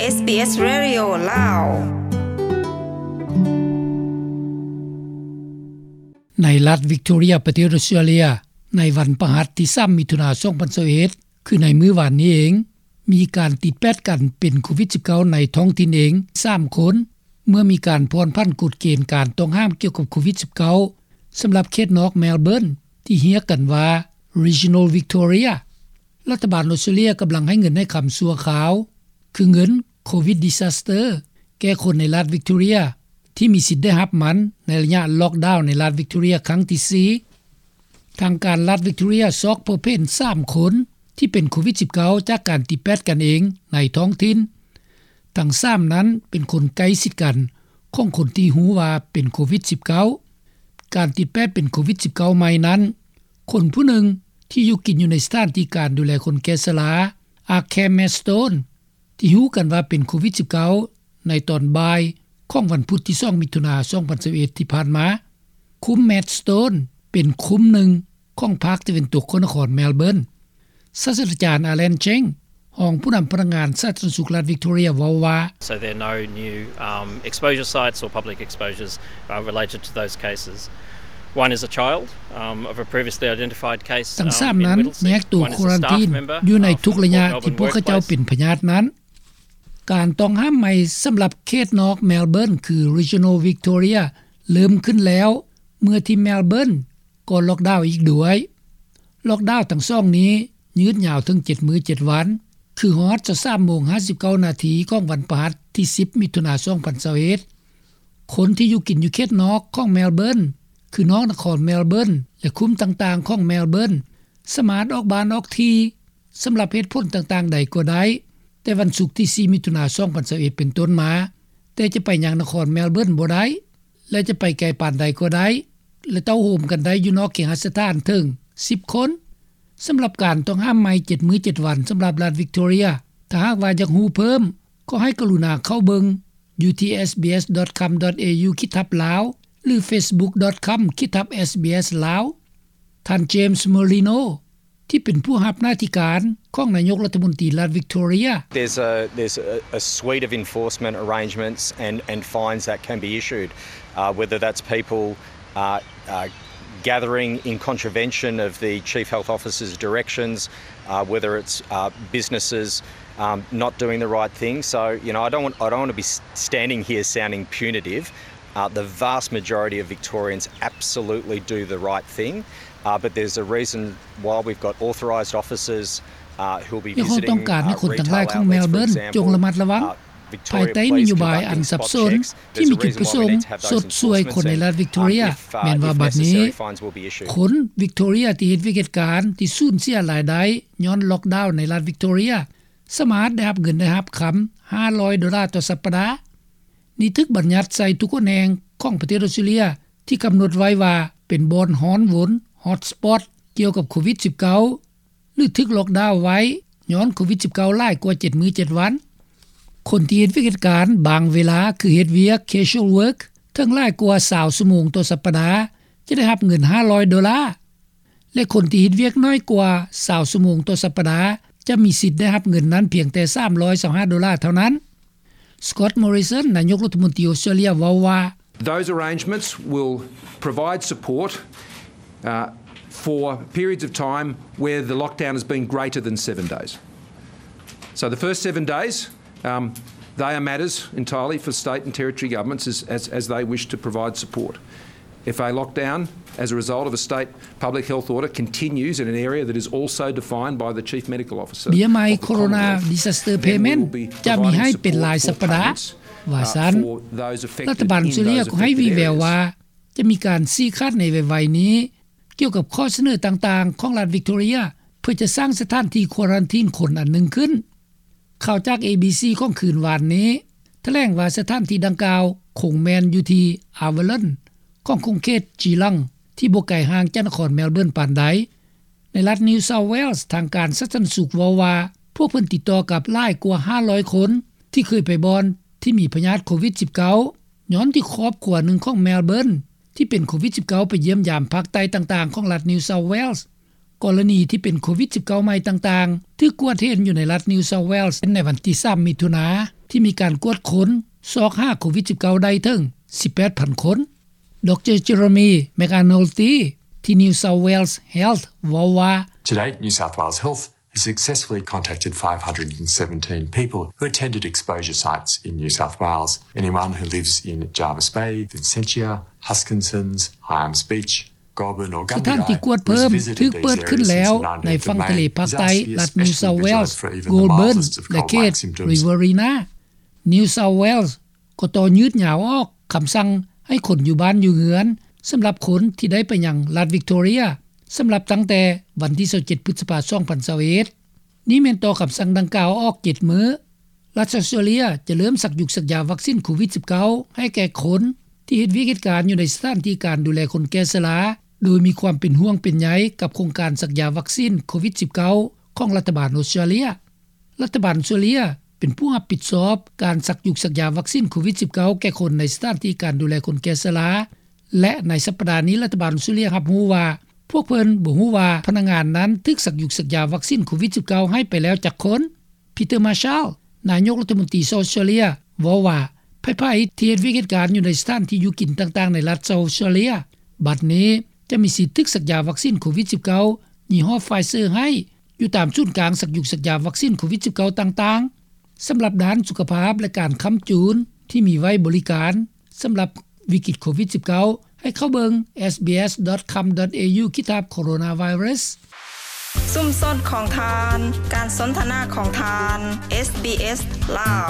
ເອສບີເອສ ເຣດິໂອ ລາວ. ໃນລັດວິກຕໍເຣຍ ປະເທດອົດສະຕຣາເລຍ ໃນວັນພະຫັດທີສາມ ມິຖຸນາ ສອງພັນຊາວເອັດ ຄືໃນມື້ວານນີ້ເອງ ມີການຕິດແປດກັນເປັນໂຄວິດສິບເກົ້າ ໃນທ້ອງຖິ່ນເອງສາມຄົນ ເມື່ອມີການຜ່ອນຜັນກົດເກນການຕ້ອງຫ້າມກ່ຽວກັບໂຄວິດສິບເກົ້າ ສຳລັບເຂດນອກແມລເບີນ ທີ່ຮຽກກັນວ່າ Regional Victoria. ລັດຖະບານອົດສະຕຣາເລຍກຳລັງໃຫ້ເງິນໃຫ້ຄຳຊົ່ວຄາວ ຄືເງິນ Covid Disaster ແກ່ຄົນໃນລັດວິກຕໍເຣຍ ທີ່ມີສິດໄດ້ຮັບມັນໃນໄລຍະລັອກດາວໃນລັດວິກຕໍເຣຍຄັ້ງທີສີ່. ທາງການລັດວິກຕໍເຣຍຊອກພົບເຫັນສາມຄົນທີ່ເປັນໂຄວິດສິບເກົ້າ ຈາກການຕິດແປດກັນເອງໃນທ້ອງຖິ່ນ. ທັງສາມນັ້ນເປັນຄົນໃກ້ຊິດກັນຂອງຄົນທີ່ຮູ້ວ່າເປັນໂຄວິດສິບເກົ້າ. ການຕິດແປດເປັນໂຄວິດສິບເກົ້າໃໝ່ນັ້ນ ຄົນຜູ້ໜຶ່ງທີ່ຢູ່ກິນຢູ່ໃນສະຖານທີ່ການດູແລຄົນແກ່ຊະລາ Arkham Maidstone ທີ່ຮູ້ກັນວ່າເປັນໂຄວິດສິບເກົ້າ ໃນຕອນບ່າຍຂອງວັນພຸດທີສອງ ມິຖຸນາ ສອງພັນຊາວເອັດ ທີ່ຜ່ານມາ. ຄຸ້ມ Maidstone ເປັນຄຸ້ມໜຶ່ງຂອງພາກຕາເວັນຕົກຂອງນະຄອນແມລເບີນ. ສາດສະດາຈານ Alan Cheng ຮອງຜູ້ນຳພະນັກງານສາທາລະນະສຸກລັດວິກຕໍເຣຍ ເວົ້າວ່າ So there are no new, um, exposure sites or public exposures, uh, related to those cases. One is a child, um, of a previously identified case, um, in Whittlesea. ທັງສາມນັ້ນແຍກໂຕຄວາຣັນທີນຢູ່ໃນທຸກໄລຍະທີ່ພວກເຂົາເຈົ້າເປັນພະຍາດນັ້ນ. ການຕ້ອງຫ້າມໃໝ່ສຳລັບເຂດນອກແມລເບີນ ຄື Regional Victoria ເລີ່ມຂຶ້ນແລ້ວ ເມື່ອທີ່ແມລເບີນກໍລັອກດາວອີກດ້ວຍ. ລັອກດາວທັງສອງນີ້ຍືດຍາວເຖິງເຈັດມື້ເຈັດວັນ ຄືຮອດຊາວສາມໂມງຫ້າສິບເກົ້ານາທີຂອງວັນພະຫັດທີສິບ ມິຖຸນາ ສອງພັນຊາວເອັດ. ຄົນທີ່ຢູ່ກິນຢູ່ເຂດນອກຂອງແມລເບີນ ຄືນອກນະຄອນແມລເບີນ ແລະ ຄຸ້ມຕ່າງໆຂອງແມລເບີນ ສາມາດອອກບ້ານອອກທີ່ ສຳລັບເຫດຜົນຕ່າງໆໃດກໍໄດ້ ແຕ່ວັນສຸກທີສີ່ ມິຖຸນາ ສອງພັນຊາວເອັດ ເປັນຕົ້ນມາ, ແຕ່ຈະໄປຍັງນະຄອນແມລເບີນບໍ່ໄດ້ ແລະ ຈະໄປໄກປານໃດກໍໄດ້ ແລະ ເຕົ້າໂຮມກັນໄດ້ຢູ່ນອກເຄຫະສະຖານເຖິງສິບຄົນ. ສຳລັບການຕ້ອງຫ້າມໃໝ່ເຈັດມື້ເຈັດວັນສຳລັບລັດວິກຕໍເຣຍ ຖ້າຫາກວ່າຢາກຮູ້ເພີ່ມ ກໍໃຫ້ກະລຸນາເຂົ້າເບິ່ງຢູ່ທີ່ SBS.com.au ຂີດທັບ Lao ຫຼື Facebook.com ຂີດທັບ SBS Lao. ທ່ານ James Merlino ທີ່ເປັນຜູ້ຮັບໜ້າທີ່ການຂອງນາຍົກລັດຖະມົນຕີລັດວິກຕໍເຣຍ. There's a, there's a, a suite of enforcement arrangements and, and fines that can be issued, uh, whether that's people, uh, uh, gathering in contravention of the Chief Health Officer's directions, uh, whether it's, uh, businesses, um, not doing the right thing. So, you know, I don't want, I don't want to be s-, standing here sounding punitive. Uh, the vast majority of Victorians absolutely do the right thing, uh, but there's a reason why we've got authorised officers, uh, who'll be visiting, uh, retail outlets, for example, uh, Victorian Police, uh, ພວກເຮົາຕ້ອງການໃຫ້ຄົນທັງຫຼາຍຂອງແມລເບີນຈົ່ງລະມັດລະວັງ ພາຍໃຕ້ນະໂຍບາຍອັນສັບສົນທີ່ມີຈຸດປະສົງຊົດຊ່ວຍຄົນໃນລັດວິກຕໍເຣຍ. ແມ່ນວ່າບັດນີ້ ຄົນວິກຕໍເຣຍທີ່ເຮັດວຽກເຮັດການທີ່ສູນເສຍລາຍໄດ້ຍ້ອນລັອກດາວໃນລັດວິກຕໍເຣຍ ສາມາດໄດ້ຮັບເງິນໄດ້ຮັບຄຳຫ້າຮ້ອຍໂດລາຕໍ່ສັບປະດາ. ນີ້ຖືກບັນຍັດໃສ່ທຸກຫົນແຫ່ງຂອງປະເທດອົດສະຕຣາເລຍ ທີ່ກຳນົດໄວ້ວ່າເປັນບ່ອນຮ້ອນວົນ Hotspot ກ່ຽວກັບໂຄວິດສິບເກົ້າ ຫຼື ຖືກລັອກດາວໄວ້ຍ້ອນໂຄວິດສິບເກົ້າຫຼາຍກວ່າເຈັດມື້ເຈັດວັນ. ຄົນທີ່ເຮັດວຽກເຮັດການບາງເວລາ ຄືເຮັດວຽກ casual work ເຖິງຫຼາຍກວ່າຊາວຊົ່ວໂມງຕໍ່ສັບປະດາ ຈະໄດ້ຮັບເງິນຫ້າຮ້ອຍໂດລາ ແລະ ຄົນທີ່ເຮັດວຽກໜ້ອຍກວ່າຊາວຊົ່ວໂມງຕໍ່ສັບປະດາ ຈະມີສິດໄດ້ຮັບເງິນນັ້ນພຽງແຕ່ສາມຮ້ອຍຊາວຫ້າໂດລາເທົ່ານັ້ນ. Scott Morrison ນາຍົກລັດຖະມົນຕີອົດສະຕຣາເລຍເວົ້າວ່າ Those arrangements will provide support, uh, for periods of time where the lockdown has been greater than seven days. So the first seven days, um, they are matters entirely for state and territory governments as, as, as they wish to provide support. If a lockdown as a result of a state public health order continues in an area that is also defined by the Chief Medical Officer of the Commonwealth, then we will be providing support for payments, uh, for those affected in those affected areas. ເບຍໄມ້ໂຄໂຣນາດີຊາສເຕີເພເມັນຈະມີໃຫ້ເປັນລາຍສັບປະດາ. ວ່າຊັ້ນ, ລັດຖະບານອົດສະຕຣາເລຍກໍໃຫ້ວີແວວວ່າ ຈະມີການຊີ້ຂາດໃນໄວໆນີ້ ກ່ຽວກັບຂໍ້ສະເໜີຕ່າງໆຂອງລັດວິກຕໍເຣຍ ເພື່ອຈະສ້າງສະຖານທີ່ຄວາຣັນທີນຄົນອັນໜຶ່ງຂຶ້ນ. ຂ່າວຈາກ ເອບີຊີ ຂອງຄືນວານນີ້ ຖະແຫຼງວ່າສະຖານທີ່ດັ່ງກ່າວຄົງແມ່ນຢູ່ທີ່ Avalon ຂອງຂົງເຂດ Geelong ທີ່ບໍ່ໄກຫ່າງຈາກນະຄອນແມລເບີນປານໃດ. ໃນລັດ New South Wales ທາງການສາທາລະນະສຸກເວົ້າວ່າ ພວກເພິ່ນຕິດຕໍ່ກັບຫຼາຍກວ່າຫ້າຮ້ອຍຄົນ ທີ່ເຄີຍໄປບ່ອນທີ່ມີພະຍາດໂຄວິດສິບເກົ້າ ຍ້ອນທີ່ຄອບຄົວໜຶ່ງຂອງແມລເບີນ ທີ່ເປັນໂຄວິດສິບເກົ້າ ໄປຢ້ຽມຢາມພາກໃຕ້ຕ່າງໆຂອງລັດ New South Wales. ກໍລະນີທີ່ເປັນໂຄວິດ-19 ໃໝ່ຕ່າງໆ ຖືກກວດເຫັນຢູ່ໃນລັດ New South Wales ໃນວັນທີ ສາມ ມິຖຸນາ ທີ່ມີການກວດຄົ້ນ ຊອກຫາໂຄວິດ-19 ໄດ້ເຖິງ 18,000 ຄົນ. ດຣ Jeremy McAnulty ທີ່ New South Wales Health ເວົ້າວ່າ: To date, New South Wales Health has successfully contacted 517 people who attended exposure sites in New South Wales. Anyone who lives in Jervis Bay, Vincentia, Huskissons, Hyams Beach, Goulburn or Gumbidiah ສະຖານທີ່ກວດເພີ່ມ ຖືກເປີດຂຶ້ນແລ້ວໃນຝັ່ງທະເລພາກໃຕ້ລັດ New South Wales, Goulburn ແລະເຂດ Riverina. New South Wales ກໍຕໍ່ຍືດຍາວອອກຄຳສັ່ງໃຫ້ຄົນຢູ່ບ້ານຢູ່ເຮືອນ ສຳລັບຄົນທີ່ໄດ້ໄປຍັງລັດ Victoria ສຳລັບຕັ້ງແຕ່ວັນທີ 27 ພຶດສະພາ 2021. ນີ້ແມ່ນຕໍ່ຄຳສັ່ງດັ່ງກ່າວອອກ 7 ມື້. ລັດ Australia ຈະເລີ່ມສັກຍຸກສັກຢາວັກຊິນໂຄວິດ-19 ໃຫ້ແກ່ຄົນທີ່ເຮັດວຽກເຮັດການຢູ່ໃນສະຖານທີ່ການດູແລຄົນແກ່ຊະລາ ໂດຍມີຄວາມເປັນຫ່ວງເປັນໃຍກັບໂຄງການສັກຢາວັກຊິນໂຄວິດ-19 ຂອງລັດຖະບານ Australia. ລັດຖະບານ Australia ເປັນຜູ້ຮັບຜິດຊອບການສັກຍຸກສັກຢາວັກຊິນໂຄວິດ-19 ແກ່ຄົນໃນສະຖານທີ່ການດູແລຄົນແກ່ຊະລາ ແລະໃນສັປດານີ້ລັດຖະບານ Australia ຮັບຮູ້ວ່າ ພວກເພິ່ນບໍ່ຮູ້ວ່າພະນັກງານນັ້ນຖືກສັກຍຸກສັກຢາວັກຊິນໂຄວິດ-19 ໃຫ້ໄປແລ້ວຈັກຄົນ. Peter Marshall ນາຍົກລັດຖະມົນຕີ Australia ເວົ້າວ່າ ໃຜໆທີ່ເຮັດວຽກເຮັດການຢູ່ໃນສະຖານທີ່ຢູ່ກິນຕ່າງໆໃນລັດ Australia ບັດນີ້ຈະມີສິດຖືກສັກຢາວັກຊິນໂຄວິດ-19 ຍີ່ຫໍ້ Pfizer ໃຫ້ຢູ່ຕາມສູນກາງສັກຍຸກສັກຢາວັກຊິນໂຄວິດ-19 ຕ່າງໆ. ສຳລັບດ້ານສຸຂະພາບ ແລະການຄ້ຳຈູນທີ່ມີໄວ້ບໍລິການສຳລັບວິກິດໂຄວິດ-19 ໃຫ້ເຂົ້າເບິ່ງ SBS.com.au/coronavirus. ຊຸມຊົນຂອງທ່ານ, ການສົນທະນາຂອງທ່ານ, SBS ລາວ.